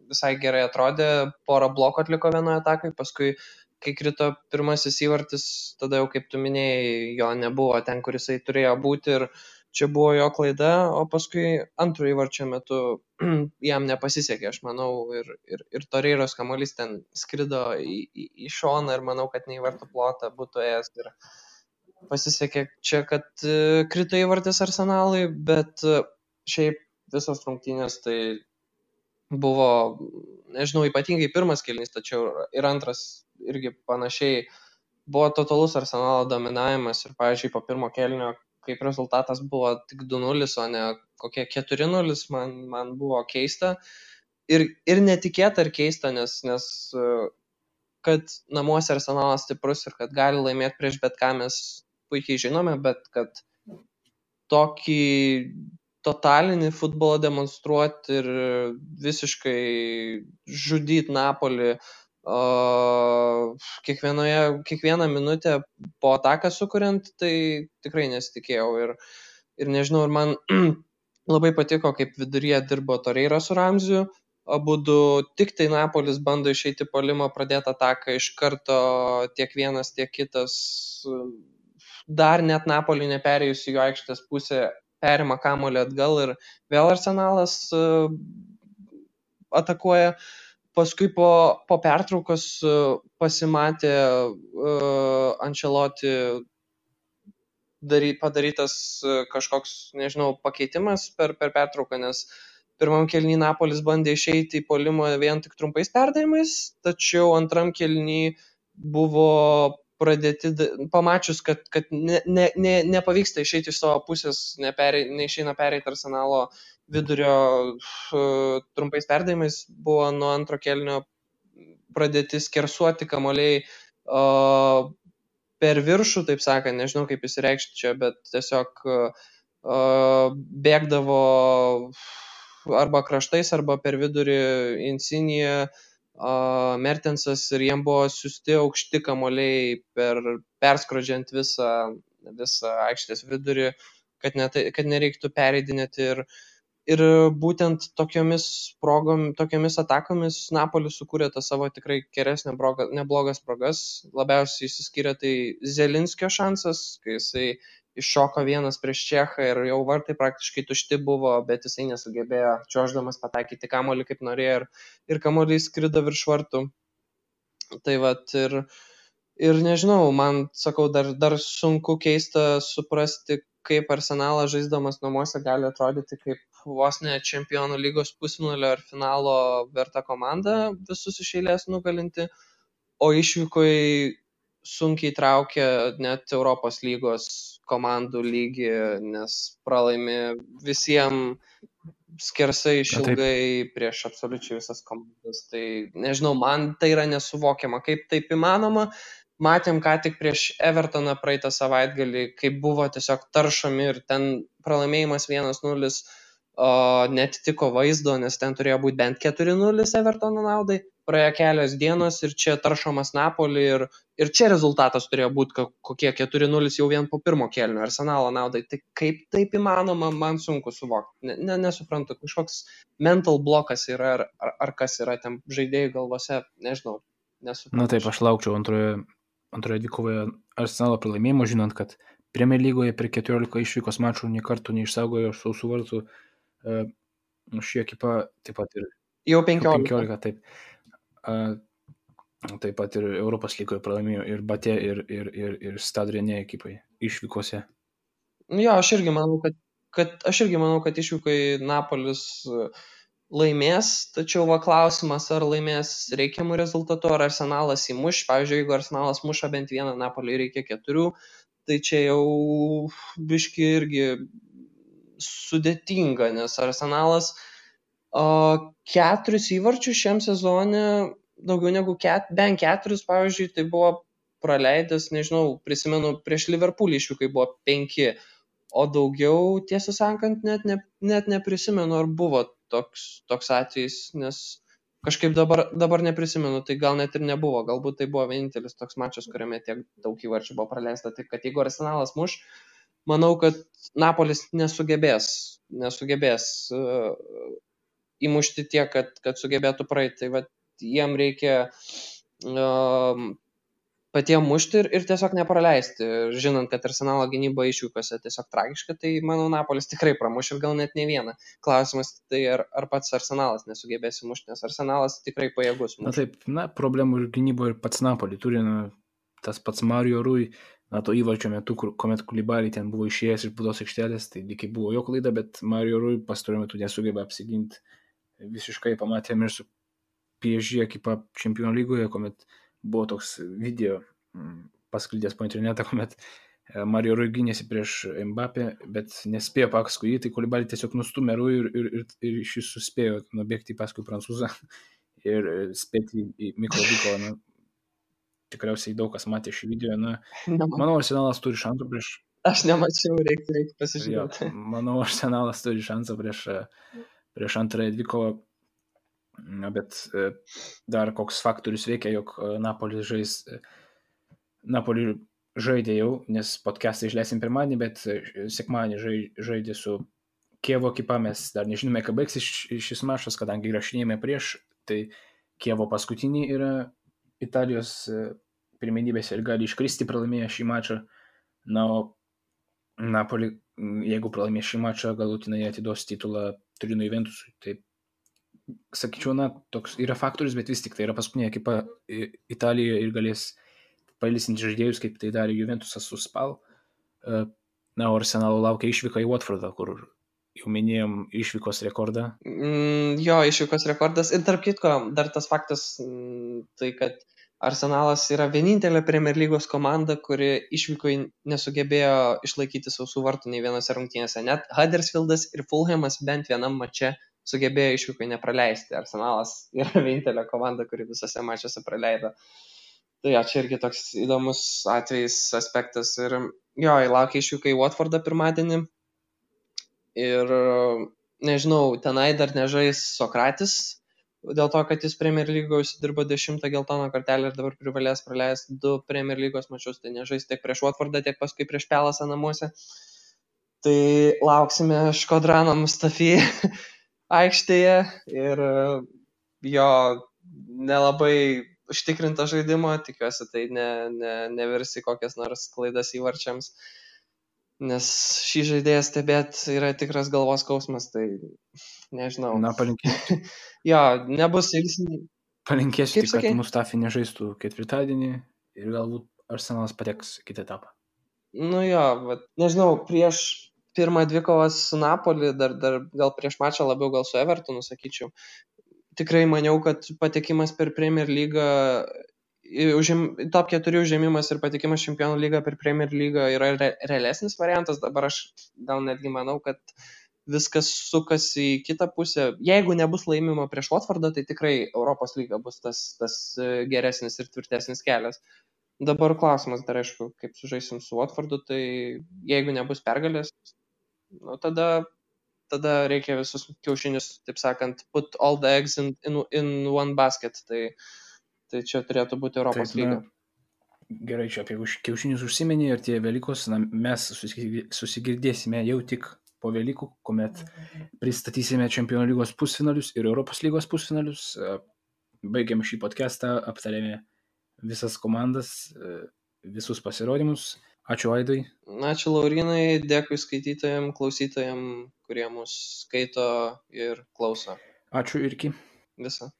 visai gerai atrodė, porą blokų atliko vienoje atakai, paskui, kai krito pirmasis įvartis, tada jau, kaip tu minėjai, jo nebuvo ten, kur jisai turėjo būti ir čia buvo jo klaida, o paskui antrų įvarčio metu jam nepasisekė, aš manau, ir Torreiros kamuolys ten skrido į šoną ir manau, kad ne į vartų plotą būtų ėjęs ir pasisekė čia, kad krito įvartis Arsenalui, bet šiaip visos rungtynės tai buvo, nežinau, ypatingai pirmas kėlinys, tačiau ir antras irgi panašiai buvo totalus Arsenalo dominavimas ir, pavyzdžiui, po pirmo kėlinio, kaip rezultatas buvo tik 2-0, o ne kokie 4-0, man buvo keista ir netikėta ir keista, nes kad namuose Arsenalas stiprus ir kad gali laimėti prieš bet ką mes puikiai žinome, bet kad tokį totalinį futbolą demonstruoti ir visiškai žudyti Napolį kiekvieną minutę po ataką sukuriant, tai tikrai nesitikėjau ir nežinau, ir man labai patiko, kaip viduryje dirbo Torreira su Ramziu, abudu tik tai Napolis bando išeiti puolimo, pradėti ataką iš karto tiek vienas, tiek kitas, dar net Napolį neperėjus į jo aikštės pusę, perima kamuolį atgal ir vėl Arsenalas atakuoja. Paskui po pertraukos pasimatė Ancelotti padarytas kažkoks, nežinau, pakeitimas per pertrauką, nes pirmam kėliny Napolis bandė išeiti į puolimą vien tik trumpais perdavimais, tačiau antram kėliny buvo pradėti, pamačius, kad nepavyksta išeiti iš savo pusės, neišeina pereiti Arsenalo vidurio trumpais perdavimais, buvo nuo antro kėlinio pradėti skersuoti kamuoliai per viršų, taip sakant, nežinau kaip įsireikšti čia, bet tiesiog bėgdavo arba kraštais, arba per vidurį Insigne, Mertensas ir jiem buvo siūsti aukšti kamuoliai perskrodžiant visą aikštės vidurį, kad nereiktų pereidinėti ir būtent tokiomis atakomis Napolis sukūrė tą savo tikrai geresnę neblogas progas. Labiausiai išsiskyrė tai Zelinskio šansas, kai jisai iššoko vienas prieš Čechą ir jau vartai praktiškai tušti buvo, bet jisai nesugebėjo čiuoždamas pataikyti kamuolį kaip norėjo ir kamuolys skrido virš vartų. Tai vat ir nežinau, man, sakau, dar sunku keista suprasti, kaip Arsenalas žaisdamas namuose gali atrodyti kaip vos ne Čempionų lygos pusfinalio ar finalo verta komanda visus iš eilės nugalinti, o išvykoje sunkiai traukia net Europos lygos komandų lygį, nes pralaimi visiems skersai išilgai prieš absoliučiai visas komandas. Tai nežinau, man tai yra nesuvokiama, kaip taip įmanoma. Matėm ką tik prieš Evertoną praeitą savaitgalį, kaip buvo tiesiog taršomi ir ten pralaimėjimas 1-0 netitiko vaizdo, nes ten turėjo būti bent 4-0 Evertono naudai. Praėjo kelios dienos ir čia taršomas Napolį ir čia rezultatas turėjo būti kokie 4-0 jau vien po pirmo kėlinio Arsenalo naudai. Tai kaip taip įmanoma, man sunku suvokti. Nesuprantu, kažkoks mental blokas yra ar kas yra ten žaidėjų galvose, nežinau. Nesuprantu. Na taip, aš laukčiau antroje dvikovoje Arsenalo pralaimėjimo, žinant, kad Premier lygoje per 14 išvykos mačų nė kartų neišsaugojo sausų vartų. Ši ekipa taip pat ir Jau 15. 15, taip. Taip pat ir Europos lygoje pralaimėjo ir Batė, ir Stade Rennais ekipai išvykose. Jo, aš irgi manau, kad išvykai Napolis laimės, tačiau va klausimas, ar laimės reikiamų rezultatų, ar Arsenalas įmuš. Pavyzdžiui, jeigu Arsenalas muša bent vieną, Napoliui reikia 4, tai čia jau biški irgi sudėtinga, nes Arsenalas 4 įvarčius šiam sezone, daugiau negu bent 4, pavyzdžiui, tai buvo praleidęs, nežinau, prisimenu, prieš Liverpoolį išvykai buvo 5, o daugiau, tiesą sakant, net neprisimenu, ar buvo toks atvejis, nes kažkaip dabar neprisimenu, tai gal net ir nebuvo, galbūt tai buvo vienintelis toks mačas, kuriame tiek daug įvarčių buvo praleista, tai kad jeigu Arsenalas muš, manau, kad Napolis nesugebės įmušti tiek, kad sugebėtų praeiti, tai va, jiem reikia patiem mušti ir tiesiog nepraleisti. Žinant, kad Arsenalo gynyba išvykose tiesiog tragiška, tai manau Napolis tikrai pramuš ir gal net ne vieną. Klausimas tai ar pats Arsenalas nesugebės įmušti, nes Arsenalas tikrai pajėgus mušti. Na taip, problemų ir gynybo ir pats Napoli turi, tas pats Mario Rui, to įvarčio metu, kuomet Koulibaly ten buvo išėjęs iš baudos aikštelės, tai lygiai buvo jo klaida, bet Mario Rui pastaruoju metu nesugeba apsiginti. Visiškai pamatėme ir su PSG ekipa Čempionų lygoje, kuomet buvo toks video pasklydęs po internetą, kuomet Mario Rui gynėsi prieš Mbappé, bet nespėjo paskui jį, tai Koulibaly tiesiog nustumė Rui ir šis suspėjo nubėgti paskui prancūzą ir spėti į mikrodyko. Tikriausiai daug kas matė šį video. Manau, Arsenalas turi šansų prieš... Aš nemačiau, reikia pasižiūrėti. Manau, Arsenalas turi šansą prieš antrąją dvikovą. Bet dar koks faktorius veikia, jog Napoli žaidė jau, nes podcastą išleisim pirmadienį, bet sekmadienį žaidė su Kievo ekipa, mes dar nežinome, ką baigsis šis mačas, kadangi įrašinėjame prieš, tai Kievo paskutinį yra Italijos pirmenybėse ir gali iškristi pralaimėję šį mačą. O Napoli, jeigu pralaimės šį mačą, galutinai atiduos titulą Turino Juventusui. Tai sakyčiau, toks yra faktorius, bet vis tik tai yra paskutinė ekipa Italijoje ir galės pailsinti žaidėjus, kaip tai darė Juventusas su Spal. O Arsenalo laukia išvyka į Watfordą, kur jau minėjom išvykos rekordą. Jo, išvykos rekordas. Ir tarp kitko, dar tas faktas, tai kad Arsenalas yra vienintelė Premier lygos komanda, kuri išvykoje nesugebėjo išlaikyti sausų vartų nei vienose rungtynėse. Net Huddersfieldas ir Fulhamas bent vienam mače sugebėjo išvykoje nepraleisti. Arsenalas yra vienintelė komanda, kuri visose mačiuose praleido. Tai čia irgi toks įdomus atvejis, aspektas. Ir jo, laukia išvyka į Watfordą pirmadienį. Ir nežinau, tenai dar nežais Sokratis, dėl to, kad jis Premier lygoje užsidirbo 10 geltoną kortelę ir dabar privalės praleisti 2 Premier lygos mačius, tai nežais tiek prieš Watfordą, tiek paskui prieš Pelasą namuose. Tai lauksime Škodrano Mustafi aikštėje ir jo nelabai užtikrinta žaidimo, tikiuosi tai nevirsi kokias nors klaidas įvarčiams, nes šį žaidėją stebėti yra tikras galvos skausmas, tai nežinau. Palinkėsiu. Jo, nebus ilgsnį. Palinkėsiu tik, kad Mustafi nežaistų ketvirtadienį ir galbūt Arsenalas pateks kitą etapą. Nežinau, prieš pirmą dvikovą su Napoli, dar gal prieš mačą labiau gal su Evertonu, sakyčiau. Tikrai maniau, kad patekimas per Premier lygą, top 4 užėmimas ir patekimas Čempionų lygą per Premier lygą yra realesnis variantas. Dabar aš gal netgi manau, kad viskas sukasi į kitą pusę. Jeigu nebus laimimo prieš Watfordą, tai tikrai Europos lyga bus tas geresnis ir tvirtesnis kelias. Dabar klausimas dar aišku, kaip sužaisim su Watfordu, tai jeigu nebus pergalės, tada reikia visus kiaušinius, taip sakant, put all the eggs in one basket. Tai čia turėtų būti Europos lyga. Gerai, čia apie kiaušinius užsiminė ir tie Velykos, mes susigirdėsime jau tik po Velykų, kuomet pristatysime Čempionų lygos pusfinalius ir Europos lygos pusfinalius. Baigiam šį podcastą, aptarėme visas komandas, visus pasirodymus. Ačiū Aidai. Ačiū Laurinai, dėkui skaitytojams, klausytojams, kurie mus skaito ir klauso. Ačiū Irki. Visą.